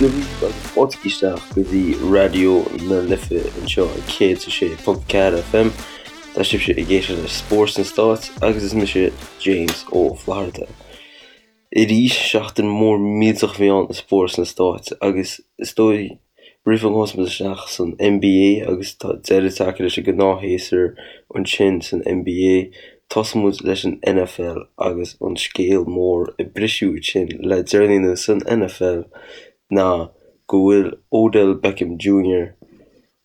Dia dhaoibh agus fáilte isteach go dtí Raidió na Life anseo ag 106.4 FM. Tá sibhse ag éisteacht le Spórt sna Stáit agus is mise James Ó Flatharta. Arís, seachtain mhór millteach a bhí ann i spórt sna Stáit agus is dóigh roimh go dtosóidh muid isteach san NBA agus tá deireadh tagtha leis an gnáthshéasúr ansin san NBA, tosóidh muid leis an NFL agus an scéal mór a briseadh ansin le deireanaí anuas san NFL ná go bhfuil Odell Beckham Jr.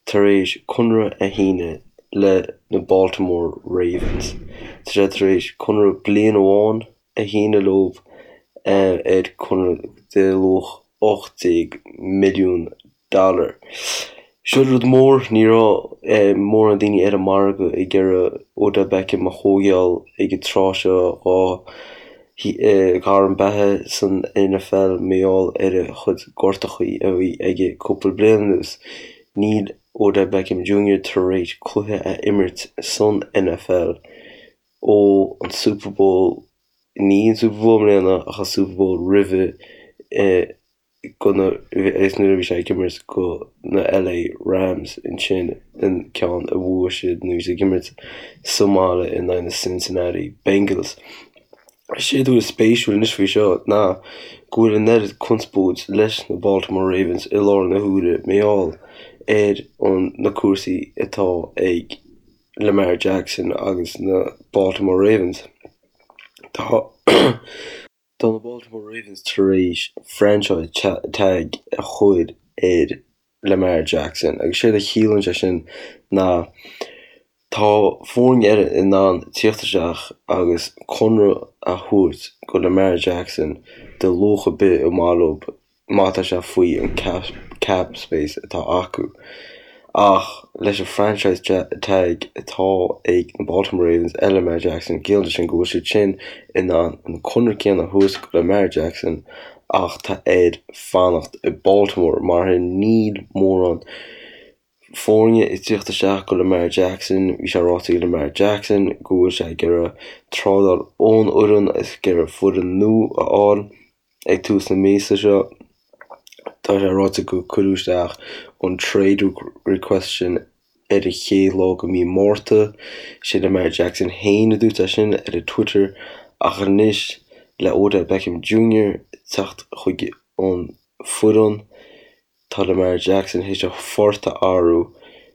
tar éis conradh a shíneadh le na Baltimore Ravens. Tá sé tar éis conradh bliain amháin a shíneadh leo ar conradh de luach 18 milliún dollar. Seo rud mór, ní raibh mórán daoine ar an margadh ag iarraidh Odell Beckham a thógáil ag an tráth seo dhá ghairm beatha san NFL mar gheall ar a chuid gortachaí a bhí aige cúpla bliain anuas. Níl Odell Beckham Jr tar éis cluiche a imirt san NFL ó an Super Bowl, ní an Super Bowl i mbliana ach an Super Bowl roimhe go na, is nuair a bhí sé ag imirt go na LA Rams ansin an ceann a bhuaigh siad nuair a bhí siad ag imirt sa mbaile in aghaidh na Cincinnati Bengals. Séard a bhfuil spéisiúil anois faoi seo ná go bhfuil an oiread conspóid leis na Baltimore Ravens i láthair na huaire mar gheall ar an na cúrsaí atá ag Lamar Jackson agus na Baltimore Ravens. Tá. Tá na Baltimore Ravens tar éis franchise tag a chur ar Lamar Jackson agus séard a chiallaíonn sé sin ná tá foirne eile in ann tíocht isteach agus conradh a thabhairt go Lamar Jackson de luach ar bith ar mhaith leo má tá sé faoi an cap space atá acu. Ach leis an franchise tag atá ag na Baltimore Ravens ar Lamar Jackson, ciallaíonn sé sin go bhfuil siad sin in ann an conradh céanna a thabhairt go Lamar Jackson ach tá air fanacht i Baltimore mar níl mórán foirne ag tíocht isteach go Lamar Jackson. Bhí sé ráite ag Lamar Jackson go bhfuil sé ag iarraidh trádáil ón fhoireann is ag iarraidh foireann nua a fháil. Ag tús na míosa seo, tá sé ráite gur cuireadh isteach an trade request sin ar an chéad lá de mhí Márta. Sé Lamar Jackson féin a dúirt é sin ar a Twitter ach anois le Odell Beckham Jr teacht chuig an foireann, tá Lamar Jackson théis a phort a athrú.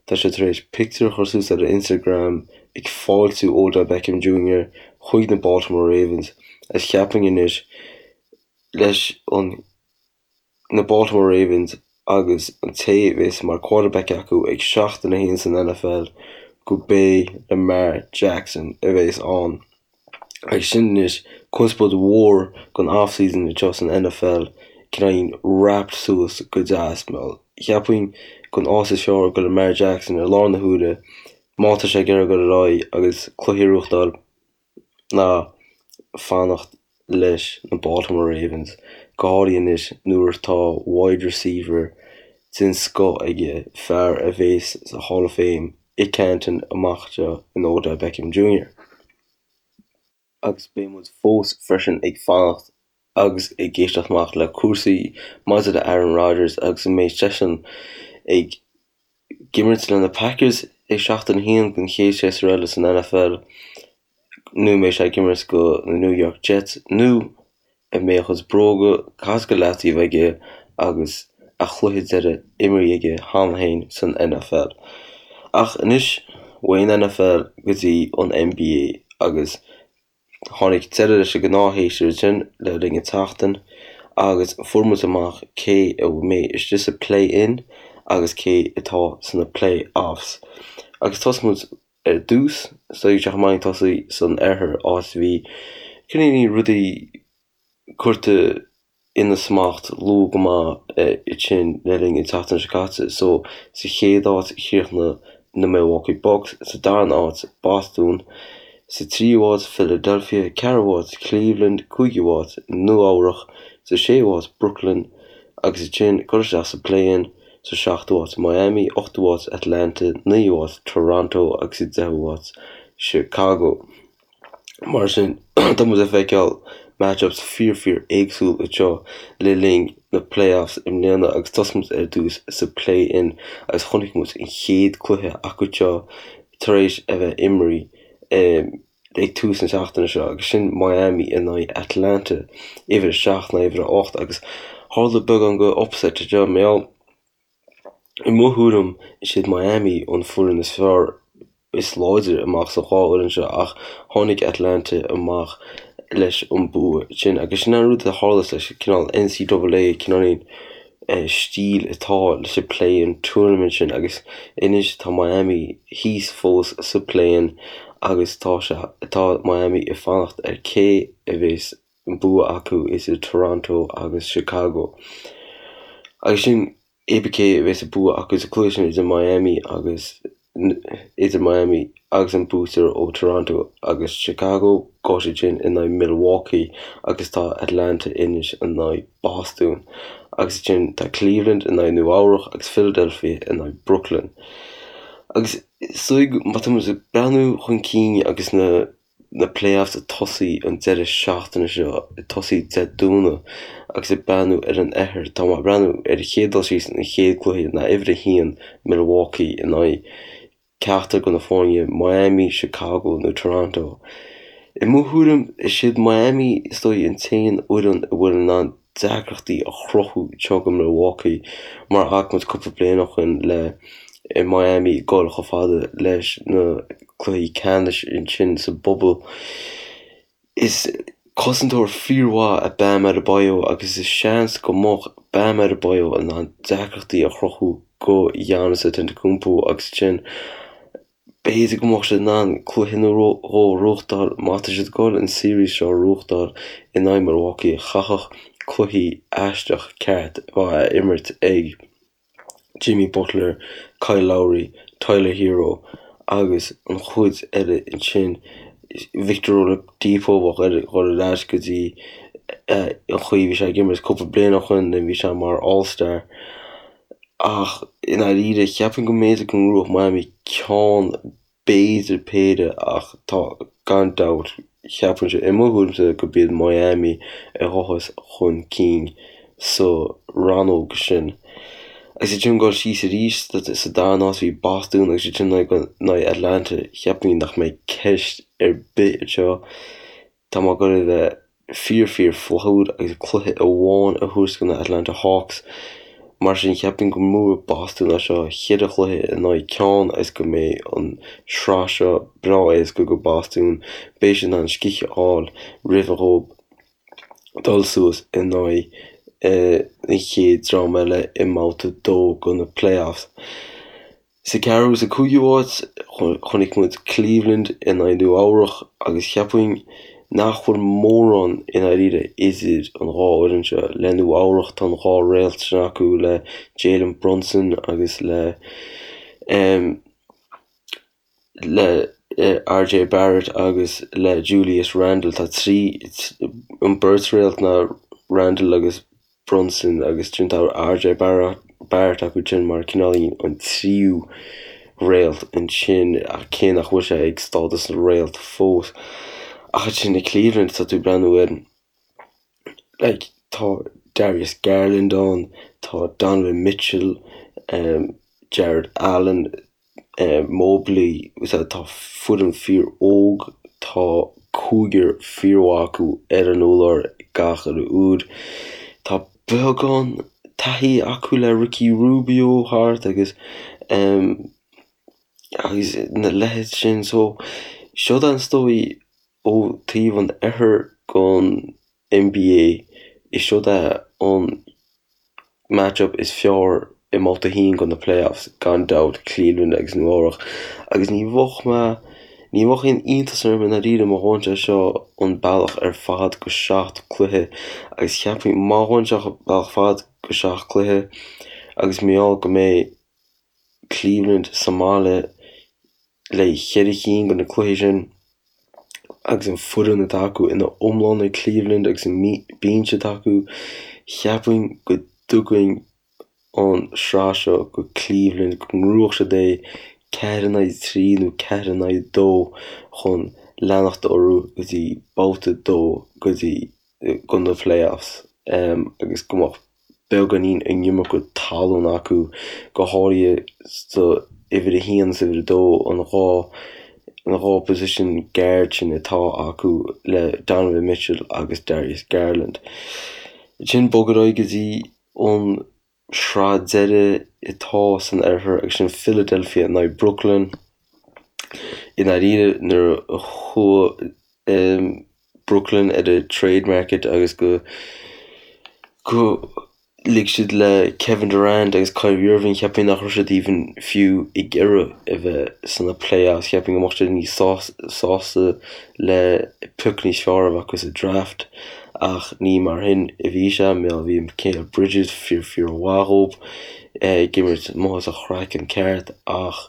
Tá sé tar éis pictiúr a chur suas ar a Instagram ag fáiltiú Odell Beckham Jr chuig na Baltimore Ravens agus cheapfainn anois leis an na Baltimore Ravens agus an té a bheas mar quarterback acu ag seachtain a haon san NFL go b'é Lamar Jackson a bheas ann. Agus sin anois conspóid mhór don off-season anseo san NFL cineáilín wrapped suas go deas. Cheapfainn gon áit is fearr go Lamar Jackson i láthair na huaire má tá sé ag iarraidh dul ar aghaidh agus cluichí a ghnóthachtáil ná fanacht leis na Baltimore Ravens, go háirithe anois nuair atá wide receiver den scoth aige, fear a bheas sa Hall of Fame i Canton amach anseo in Odell Beckham Jr. Agus beidh muid fós freisin ag fanacht agus ag éisteacht amach le cúrsaí maidir le Aaron Rodgers agus an mbeidh seisean ag imirt le na Packers ag seachtain a haon den chéad séasúr eile san NFL nó an mbeidh sé ag imirt go na New York Jets nó an mbeidh a chuid bróga caite go leataobh aige agus a chluiche deiridh imeartha aige cheana féin san NFL. Ach anois, uaidh an NFL go dtí an NBA agus tháinig deireadh leis an ngnáthshéasúr ansin le linn an tseachtain agus fuair muid amach cé a mbeidh istigh sa play-in agus cé atá sna play-offs. Agus tosóidh muid Ar dtús, is dóigh go maith tosaí san oirthear, áit a bhí cineáilín rudaí curtha ina smacht luath go maith ansin le linn an tseachtain seo caite. So, sa chéad áit chríochnaigh na Milwaukee Bucks, sa darna áit Boston, sa tríú háit Philadelphia, ceathrú háit Cleveland, cúigiú háit Nua Eabhrach, sa séú háit Brooklyn agus ansin curtha isteach sa play-in. Sa seachtú háit, Miami, ochtú háit, Atlanta, naoú háit, Toronto agus sa deichiú háit, Chicago. Mar sin, tá muid ag feiceáil matchups fíor fíor éagsúil anseo le linn na playoffs i mbliana agus tosóidh muid ar dtús sa play-in agus chonaic muid an chéad cluiche acu seo tar éis a bheith imrithe ag tús na seachtaine seo agus sin Miami in aghaidh Atlanta, uimhir 7 in aghaidh uimhir 8 agus tharla beagán de upset anseo mar gheall i mo thuairim is iad Miami an foireann is fearr is láidre amach sa dhá fhoireann seo ach tháinig Atlanta amach leis an bua sin agus sin an rud a tharla leis an cineál NCAA cineáilín stíl atá leis an play-in tournament sin agus anois tá Miami thíos fós sa play-in agus tá sé tá Miami ag fanacht ar cé a bheas an bua acu idir Toronto agus Chicago. Agus sin cibé cé a bheas an bua acu sa cluiche sin idir Miami agus idir Miami agus an buaiteoir ó Toronto agus Chicago, gabhfaidh siad sin in aghaidh Milwaukee agus tá Atlanta anois in aghaidh Boston. Agus ansin tá Cleveland in aghaidh Nua Eabhrach agus Philadelphia in aghaidh Brooklyn. Agus is dóigh má tá muid ag breathnú chun cinn agus na na playoffs ag tosaí an deireadh seachtaine seo, ag tosaí Dé Domhnaigh agus ag breathnú ar an oirthear, tá mé ag breathnú ar an chéad dul síos an chéad cluiche ná uimhir a haon Milwaukee in aghaidh ceachtar de na foirne Miami, Chicago nó Toronto. I mo thuairim, is iad Miami is dóigh an t-aon fhoireann a bhfuil in ann deacrachtaí a chruthú anseo go Milwaukee mar a chonaic muid cúpla bliain ó shin le Miami ag dul chomh fada leis na cluichí ceannais ansin sa bubble. Is cosantóir fíormhaith é Bam Adebayo agus is seans go mbeadh Bam Adebayo in ann deacrachtaí a chruthú go Giannis Antetokounmpo agus ansin B'fhéidir go mbeadh siad in ann cluiche nó dhó a ghnóthachtáil má tá siad ag dul an series seo a ghnóthachtáil in aghaidh Milwaukee. Chaithfeadh cluichí aisteach ceart a bheith á imirt ag Jimmy Butler, Kyle Lowry, Tyler Herro agus an chuid eile ansin. Victor Oladipo bheadh air dhul ar ais go dtí an chaoi a bhí sé ag imirt cúpla bliain ó shin nuair a bhí sé mar All-Star. Ach i ndáiríre, cheapfainn go mb'fhéidir go ngnóthódh Miami ceann, b'fhéidir péire ach tá, gan dabht, cheapfainnse, i mo thuairimse, gurb iad Miami a ghabhfas chun cinn sa rannóg sin. Agus iad sin ag dul síos arís sa darna háit bhí Boston agus iad sin in aghaidh Atlanta, cheapfainn nach mbeidh ceist ar bith anseo. Tá mé ag dul a bheith fíor fíor flaithiúil agus cluiche amháin a thabhairt do na Atlanta Hawks. Mar sin cheapfainn go mbuafaidh Boston é seo cheithre chluiche in aghaidh ceann agus go mbeidh an sraith seo breá éasca go Boston. Beidh siad in ann scíth a fháil roimh dhóibh dul suas in aghaidh an chéad dream eile i mbabhta 2 go na playoffs. Sa ceathrú agus sa cúigiú háit, chonaic muid Cleveland in aghaidh Nua Eabhrach agus cheapfainn nach bhfuil mórán i ndáiríre idir an dhá fhoireann seo. Le Nua Eabhrach tá an dhá réalt sin acu le Jalen Brunson agus le le RJ Barrett agus le Julius Randle. Tá trí an beirt réalt ná Randle agus Brunson agus ansin tá RJ Barrett acu sin mar cineáilín an tríú réalt ansin ach cé nach bhfuil sé ag stádas na réalt fós. Ach ansin i Cleveland tá tú ag breathnú ar like tá Darius Garland ann, tá Donovan Mitchell, Jarrett Allen, Mobley, tá foireann fíor óg, tá cúigear fíormhaith acu ar an urlár gach uile uair. Tá beagán taithí acu le Ricky Rubio thart agus agus na leithéid sin so seo is dóigh ó taobh an oirthir gon NBA is seod é an match-up is fearr i mbabhta a haon go na playoffs, gan dabht, Cleveland agus Nua Eabhrach. Agus ní bheadh mé, ní bheadh aon iontas orm i ndáiríre má ghabhann sé seo an bealach ar fad go seacht cluiche agus cheapfainn má ghabhann sé an bealach fad go seacht cluiche agus mar gheall go mbeidh Cleveland sa mbaile le cheithre chinn de na cluichí sin agus an foireann atá acu ina iomlán ag Cleveland agus an binse atá acu, cheapfainn go dtugainn an sraith seo go Cleveland, go ngnóthódh siad é 4 in aghaidh 3 nó 4 in aghaidh 2 chun leanacht orthu go dtí babhta 2 go dtí. go na playoffs agus go mbeadh beagáinín an iomarca talún acu, go háirithe sa uimhir a haon is uimhir a dó, an 2 na 2 position guard sin atá acu le Donovan Mitchell agus Darius Garland. Ansin bog ar aghaidh go dtí an sraith deiridh atá san oirthear agus sin Philadelphia in aghaidh Brooklyn. I ndáiríre nuair a chuaigh Brooklyn ar an trade market agus go go lig siad le Kevin Durant agus Kyrie Irving cheapfainn nach raibh siad even fiú ag iarraidh a bheith sna playoffs, cheapfainn go mbeadh siad níos sásta le pioc níos fearr a bheith acu sa draft. Ach ní mar shin a bhí sé, mar bhí Mikal Bridges fíor fíor mhaith dhób, ag imirt amuigh as a chraiceann ceart ach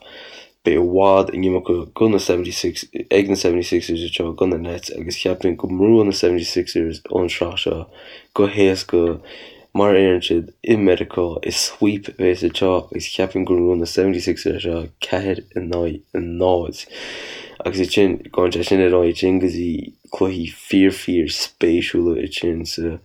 beidh i bhfad an iomarca go na 76 ag na 76ers anseo go na Nets agus cheapfainn go mbuafaidh na 76ers an sraith seo go héasca mar a deireann siad i Meiriceá is sweep a bheas anseo agus cheapfainn go mbuafaidh na 76ers seo 4 in aghaidh 0 agus ansin gabhann sé sin ar aghaidh ansin go dtí cluichí fíor fíor spéisiúla ansin sa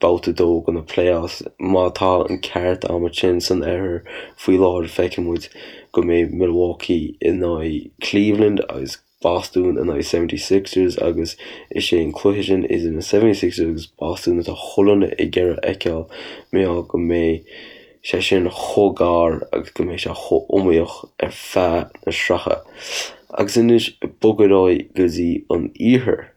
babhta 2 de na playoffs. Má tá an ceart agam ansin san oirthear faoi láthair feicfidh muid go mbeidh Milwaukee in aghaidh Cleveland agus Bostún in aghaidh 76ers agus is é an cluiche sin idir na 76ers agus Bostún atá chuile dhuine ag iarraidh a fheiceáil mar gheall go mbeidh sé sin chomh gar agus go mbeidh sé chomh iomaíoch ar feadh na sraithe. Agus anois bog ar aghaidh go dtí an iarthar.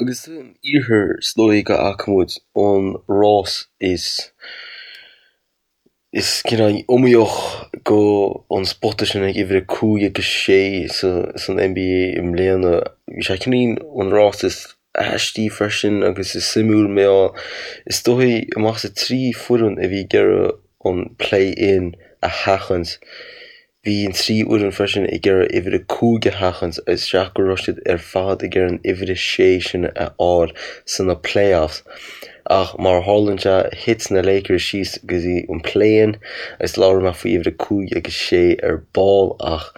Agus san iarthar is dóigh go bhfaca muid an rás is is cineál iomaíoch go an spota sin ag uimhir 5 agus 6 san NBA i mbliana. Bhí sé cineál an rás is aistí freisin agus is suimiúil mar gheall is dóigh amach as an 3 foireann a bhí ag iarraidh an play-in a sheachaint. Bhí an 3 fhoireann freisin ag iarraidh uimhir 5 a sheachaint isteach go raibh siad ar fad ag iarraidh an uimhir 6 sin a fháil sna playoffs. Ach mar a tharlaíonn sé, thit na Lakers síos go dtí an play-in agus labhróidh mé faoi uimhir 5 agus 6 ar ball ach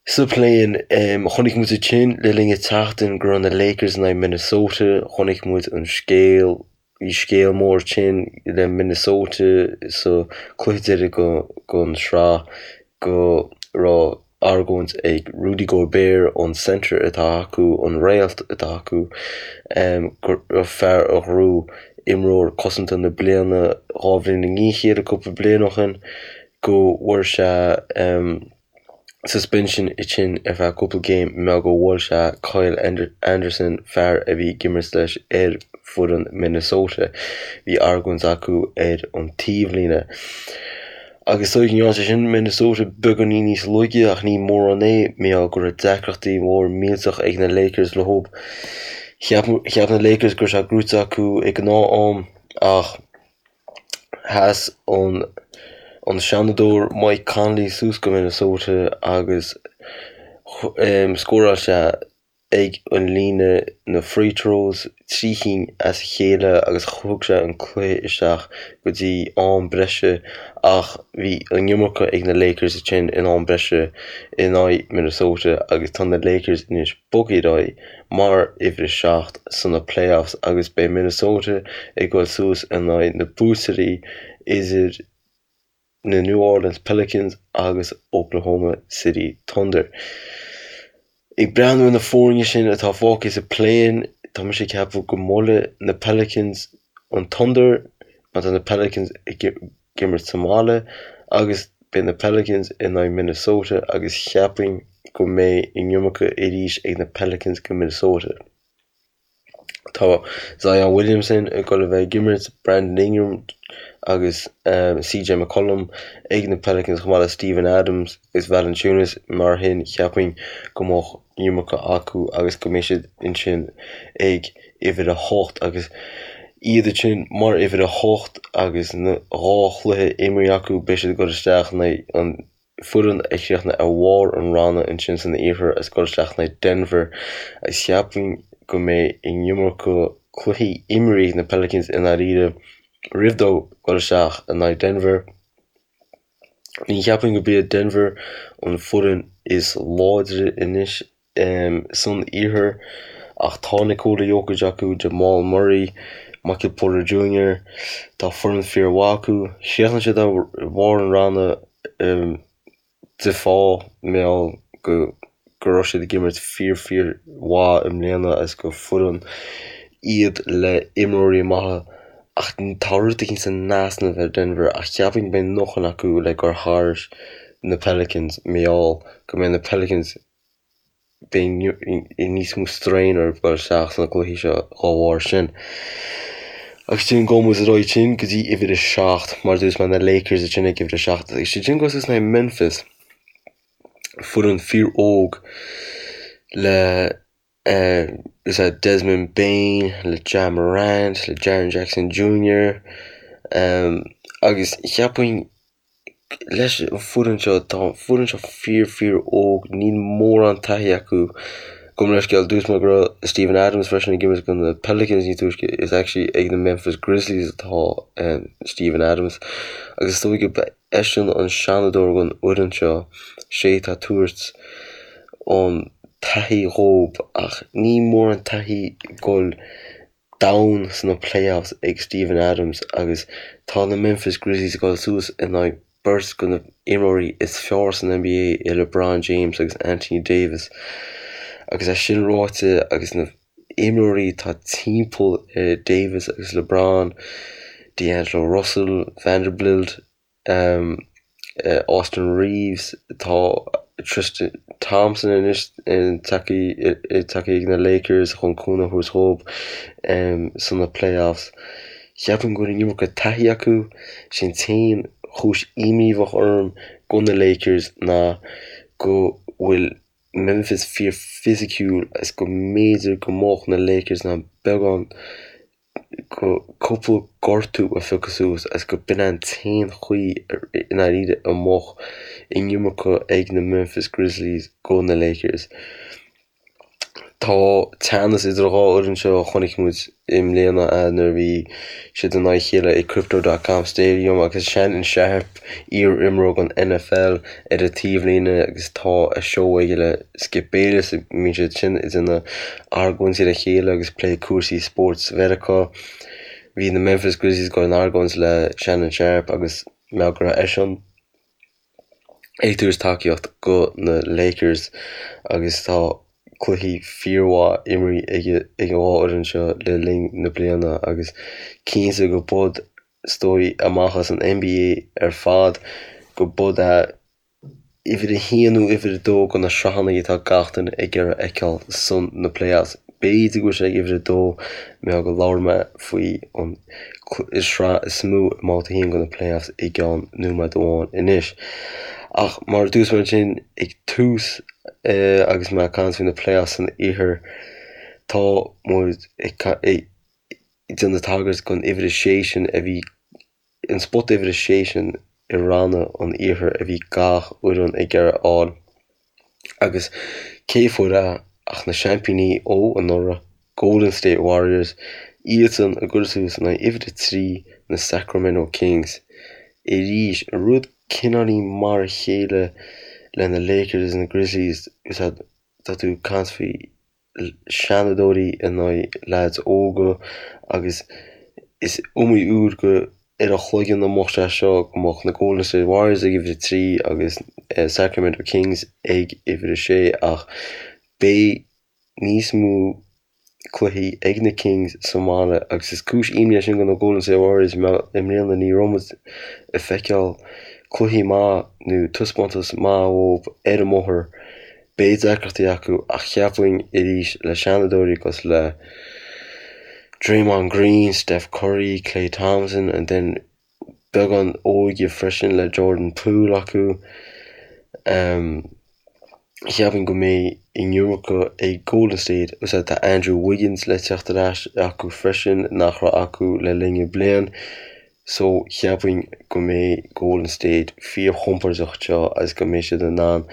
Sa play-in, chonaic muid ansin le linn an tseachtain go raibh na Lakers in aghaidh Minnesota, chonaic muid an scéal, bhí scéal mór ansin le Minnesota sa cluiche deiridh den sraith go raibh argóint ag Rudy Gobert, an center atá acu, an réalt atá acu, go raibh fear a ghnóthaigh imreoir cosanta na bliana 2 bhliain i ndiaidh a chéile cúpla bliain ó shin, go bhfuair sé. suspension ansin ar feadh cúpla game mar go bhuail sé Kyle Anderson, fear a bhí ag imirt leis ar foireann Minnesota. Bhí argóint acu ar an taobhlíne. Agus dóigh go ndearna sé sin Minnesota beagáinín níos laige ach ní mórán é mar gheall go raibh deacrachtaí mór millteach ag na Lakers leo. Cheap na Lakers go raibh sé gnóite acu ag gnáth-am ach Sheas an Seanadóir Mike Conley suas go Minnesota agus scóráil sé ag an líne na free throws, 3 chinn as a chéile agus thug sé an cluiche isteach go dtí am breise ach bhí an iomarca ag na Lakers ansin in am breise in aghaidh Minnesota agus tá na Lakers anois bogtha ar aghaidh mar uimhir 7 sna playoffs agus beidh Minnesota ag dul suas in aghaidh na buaiteoirí idir na New Orleans Pelicans agus Oklahoma City Thunder. Ag breathnú ar na foirne sin atá fágtha sa play-in, tá mise ag ceapadh go mbuailfidh na Pelicans an Thunder mar tá na Pelicans ag imirt sa mbaile agus beidh na Pelicans in aghaidh Minnesota agus cheapfainn go mbeidh an iomarca arís ag na Pelicans go Minnesota. Tá Zion Williamson ag dul a bheith ag imirt, Brandon Ingram agus CJ McCollum ag na Pelicans chomh maith le Steven Adams agus Valanciunas mar sin cheapfainn go mbeadh an iomarca acu agus go mbeidh siad ansin ag uimhir 8 agus iad ansin mar uimhir 8 agus na 2 chluiche imeartha acu beidh siad ag dul isteach in aghaidh an foireann a chríochnaigh ar bharr an ranna ansin san iarthar agus dul isteach in aghaidh Denver agus cheapfainn go mbeidh an iomarca cluichí imeartha ag na Pelicans i ndáiríre roimh dóibh dul isteach in aghaidh Denver. Ní cheapfainn go b'iad Denver an foireann is láidre anois san iarthar. Ach tá Nikola Jokic acu, Jamal Murray, Michael Porter Jr. Tá foireann fíormhaith acu. Chríochnaigh siad ar bharr an ranna de fáth mar gheall go go raibh siad ag imirt fíor fíor mhaith i mbliana agus gur foireann iad le imreoirí maithe ach tá rud éicint in easnamh ar Denver ach cheapfainn go mbeidh a ndóthain acu le gabháil thar na Pelicans mar gheall go mbeidh na Pelicans beidh níos mó strain orthu dul isteach sna cluichí seo dá bharr sin. Agus sin gabhfaidh muid ar aghaidh ansin go dtí uimhir a 7, mar a dúirt mé na Lakers ansin ag uimhir a 7 agus siad sin ag dul suas in aghaidh Memphis, foireann fíor óg le is é Desmond Bane, le Ja Morant, le Jaren Jackson Jr. Agus cheapfainn leis an foireann seo, tá an foireann seo fíor fíor óg, níl mórán taithí acu. Gabh mo leithscéal, dúirt mé go raibh Steven Adams freisin ag imirt do na Pelicans níos túisce, is actually ag na Memphis Grizzlies atá Steven Adams. Agus is dóigh gurb eisean an seanadóir den fhoireann seo, sé atá ag tabhairt an taithí dhóibh ach níl mórán taithí ag dul domhain sna playoffs ag Steven Adams agus tá na Memphis Grizzlies ag dul suas in aghaidh beirt de na imreoirí is fearr san NBA i LeBron James agus Anthony Davis. Agus é sin ráite agus na imreoirí atá timpeall ar Davis agus LeBron, D'Angelo Russell, Vanderbilt, Austin Reaves, tá Tristan Thompson anois tagtha ag na Lakers chun cúnamh a thabhairt dhóibh sna playoffs. Cheapfainn go bhfuil an iomarca taithí acu. Is é an t-aon chúis imní a bheadh orm go na Lakers ná go bhfuil Memphis fíor fisiciúil agus go mb'fhéidir go mbeadh na Lakers in ann beagán go cúpla gortú a phiocadh suas agus go b'in an t-aon chaoi i ndáiríre a mbeadh an iomarca ag na Memphis Grizzlies go na Lakers. Tá teannas idir an dhá fhoireann seo a chonaic muid i mbliana nuair a bhí siad in aghaidh a chéile i Crypto dot com Stadium agus Shannon Sharpe, iar-imreoir den NFL, ar an taobhlíne agus tá a seó aige le Skip Bayless, bíonn siad sin ag déanamh argóintí le chéile agus plé cúrsaí spóirt Mheiriceá. Bhí na Memphis Grizzlies ag dul in argóint le Shannon Sharpe agus mar go raibh eisean ag tabhairt tacaíocht go na Lakers agus tá cluichí fíormhaith imrithe ag an dhá fhoireann seo le linn na bliana agus cinnte go bud is dóigh amach as an NBA ar fad go bud é uimhir a haon nó uimhir a dó de na sraitheanna atá gach duine ag iarraidh a fheiceáil san na playoffs. B'fhéidir go bhfuil sé ag uimhir a dó mar go labhair mé faoi an sraith is mó i mbabhta a haon de na playoffs i gceann nóiméad amháin anois. Ach mar a dúirt mé ansin ag tús agus mé ag caint faoi na playoffs san iarthar, tá muid ag déanamh tagairt don uimhir a sé sin a bhí an spota uimhir a sé sin i ranna an iarthair a bhí gach fhoireann ag iarraidh a fháil. Agus cé fuair é ach na seaimpíní ó anuraidh, Golden State Warriors, iadsan ag dul suas in aghaidh uimhir a 3 na Sacramento Kings. Arís, rud cineáilín mar a chéile le na Lakers agus na Grizzlies, tá tú ag caint faoi seanadóirí in aghaidh leaids óga agus is iomaí uair go ar a chloigeann a mbeadh sé seo go mbeadh na Golden State Warriors ag uimhir a 3 agus Sacramento Kings ag uimhir a 6 ach beidh níos mó cluichí ag na Kings sa mbaile agus is cúis imní é sin do na Golden State Warriors mar i mbliana ní raibh muid ag feiceáil cluichí maith nó taispeántas maith uathu ar an mbóthar. Beidh deacrachtaí acu ach cheapfainn arís le seanadóirí cosúil le Draymond Green, Steph Curry, Klay Thompson and then beagán óige freisin le Jordan Poole acu. Cheapfainn go mbeidh an iomarca ag Golden State agus tá Andrew Wiggins le teacht ar ais acu freisin nach raibh acu le linn na bliain. So cheapfainn go mbeidh Golden State fíorchompordach anseo agus go mbeidh siad in ann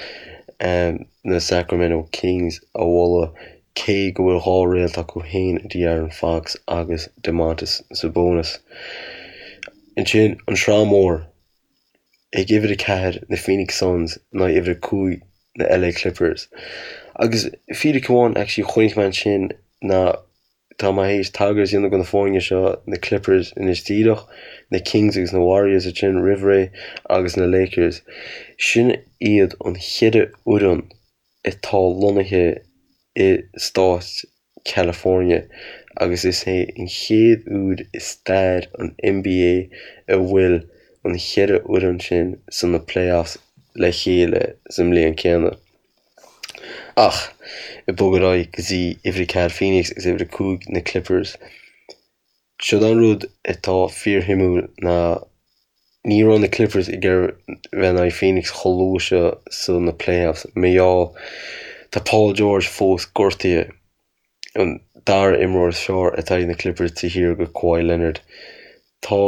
na Sacramento Kings a bhualadh cé go bhfuil dhá réalt acu féin, De'Aaron Fox agus Domantas Sabonis. Ansin an sraith mór ag uimhir 4 na Phoenix Suns in aghaidh uimhir 5 na LA Clippers. Agus fíric amháin actually chonaic mé ansin. ná tá mé théis tagairt a dhéanamh do na foirne seo, na Clippers anois díreach, na Kings agus na Warriors ansin roimh ré agus na Lakers. Sin iad an cheithre fhoireann atá lonnaithe i stát California agus is é an chéad uair i stair an NBA a bhfuil an cheithre fhoireann sin sna playoffs le chéile sa mbliain céanna. Ach ag bogadh ar aghaidh go dtí uimhir a 4 Phoenix agus uimhir a 5 na Clippers. Siod an rud atá fíorshuimiúil ná ní raibh na Clippers ag iarraidh bheith in aghaidh Phoenix chomh luath seo sa na playoffs mar gheall tá Paul George fós gortaithe, an dara imreoir is fearr atá ag na Clippers taobh thiar de Kawhi Leonard. Tá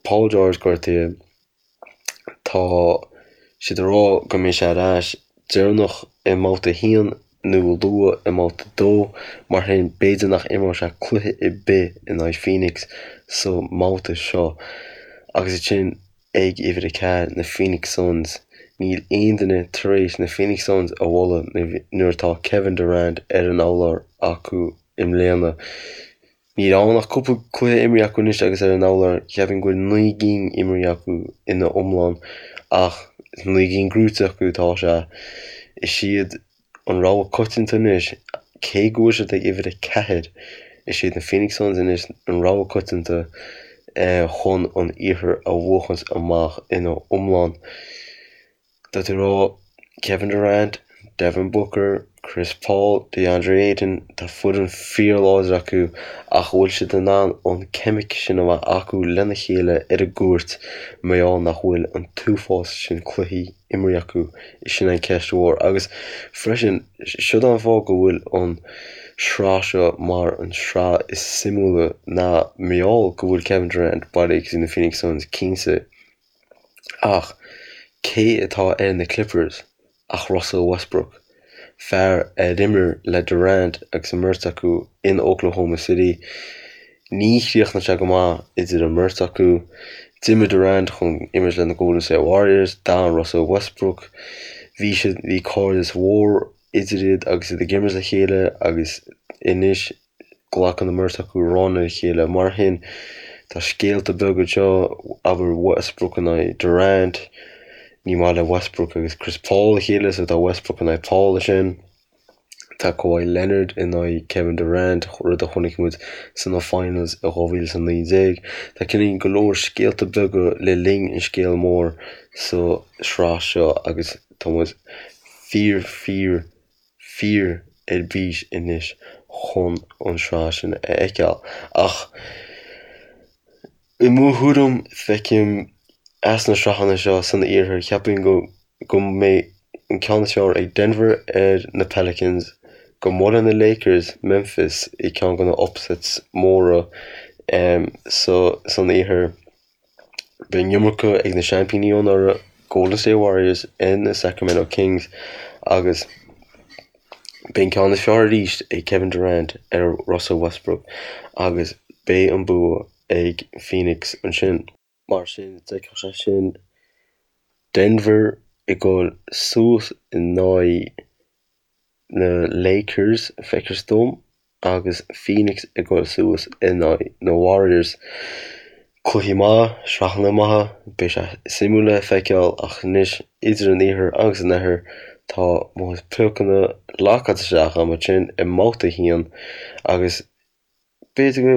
Paul George gortaithe. Tá siad ag rá go mbeidh sé ar ais deireanach i mbabhta a haon nó luath i mbabhta a dó, mar sin b'fhéidir nach imreoidh sé cluiche ar bith in aghaidh Phoenix sa mbabhta seo. Agus ansin ag uimhir a 4, na Phoenix Suns. Níl aon duine tar éis na Phoenix Suns a bhualadh nuair atá Kevin Durant ar an urlár acu i mbliana. Níl ann ach cúpla cluiche imrithe acu anois agus ar an urlár, cheapfainn go bhfuil 9 gcinn imrithe acu ina iomlán ach 9 gcinn gnóite acu atá sé. Is iad an rogha coitianta anois, cé go bhfuil siad ag uimhir 4, is iad na Phoenix Suns anois an rogha coitianta chun an iarthar a bhuachaint amach ina iomlán. Tá tú ag rá Kevin Durant, Devin Booker, Chris Paul, DeAndre Ayton, tá foireann fíorláidir acu ach an bhfuil siad in ann an ceimic sin a bheith acu lena chéile ar an gcúirt mar gheall nach bhfuil an t-uafás sin cluichí imrithe acu? Sin an ceist mhór. Agus freisin, siod an fáth go bhfuil an sraith seo mar an sraith is suimiúla ná mar gheall go bhfuil Kevin Durant bailithe go dtí na Phoenix Suns, cinnte. Ach cé atá ar na Clippers ach Russell Westbrook, fear a d'imir le Durant agus an mbeirt acu in Oklahoma City. Ní chríochnaigh sé go maith idir an mbeirt acu. D'imigh Durant chun imirt le na Golden State Warriors, d'fhan Russell Westbrook. Bhí siad, bhí cairdeas mhór idir iad agus iad ag imirt le chéile agus anois Glacann an mbeirt acu run ar a chéile. Mar sin, tá scéalta beaga anseo, abair Westbrook in aghaidh Durant, ní maith le Westbrook agus Chris Paul a chéile so tá Westbrook in aghaidh Paul ansin. Tá Kawhi Leonard in aghaidh Kevin Durant, rud a chonaic muid sna finals i 2019. Tá cineál go leor scéalta beaga le linn an scéal mór sa sraith seo agus tá muid fíor fíor fíor ar bís anois chun an sraith sin a fheiceáil. Ach i mo thuairim, feicim as na sraitheanna seo san iarthar, cheapfainn go go mbeidh an ceann is fearr ag Denver ar na Pelicans, go mbuailfidh na Lakers Memphis i ceann de na upsets móra sa san iarthar. Beidh an iomarca ag na seaimpíní ó anuraidh, Golden State Warriors, ar na Sacramento Kings agus beidh an ceann is fearr arís ag Kevin Durant ar Russell Westbrook agus beidh an bua ag Phoenix ansin. Mar sin, d'fheicfeadh sé sin Denver ag dul suas in aghaidh na Lakers, feictear dom, agus Phoenix ag dul suas in aghaidh na Warriors. Cluichí maith, sraitheanna maithe, beidh sé suimiúil le feiceáil ach anois idir an iarthar agus an oirthear tá mo chuid piocanna lockáilte isteach agam ansin i mbabhta a haon agus B'fhéidir go,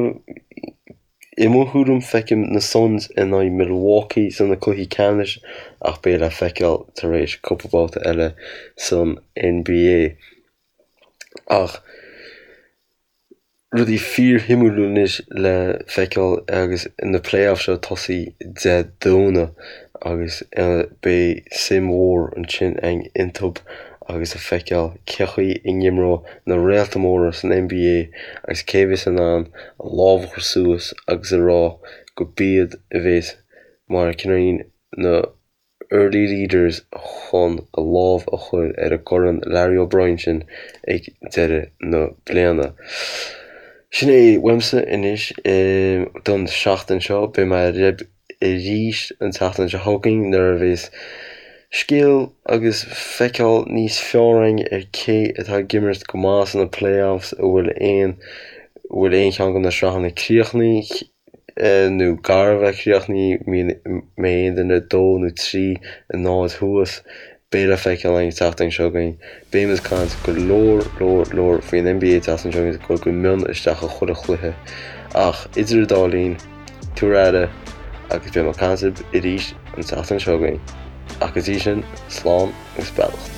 i mo thuairim, feicim na Suns in aghaidh Milwaukee sna cluichí ceannais ach beidh le feiceáil tar éis cúpla babhta eile san NBA. Ach rudaí fíorshuimiúil anois le feiceáil agus na playoffs seo ag tosaí Dé Domhnaigh agus beidh suim mhór ansin againn iontu agus a feiceáil cé chaoi a n-imreoidh na réalta móra san NBA agus cé a bheas in ann a lámh a chur suas agus a rá go b'iad a bheas mar cineál na early leaders chun a lámh a chur ar an gCorn Larry O'Brien sin ag deireadh na bliana. Sin é uaimse anois don seachtain seo. Beidh mé libh arís an tseachtain seo chugainn nuair a bheas. Scéal agus feiceáil níos fearr againn ar cé atá ag imirt go maith sna playoffs, an bhfuil aon bhfuil aon cheann de na sraitheanna críochnaithe nó gar a bheith críochnaithe, mbeidh aon duine 2 nó 3 0 thuas. Beidh le feiceáil againn an tseachtain seo chugainn. Beidh muid ag caint go leor, leor, leor faoin NBA an tseachtain seo chugainn, ag dul go mion isteach i chuile chluiche. Ach idir an dá linn, tabhair aire agus beidh mé ag caint libh arís an tseachtain seo chugainn. Ach go dtí sin, slán agus beannacht.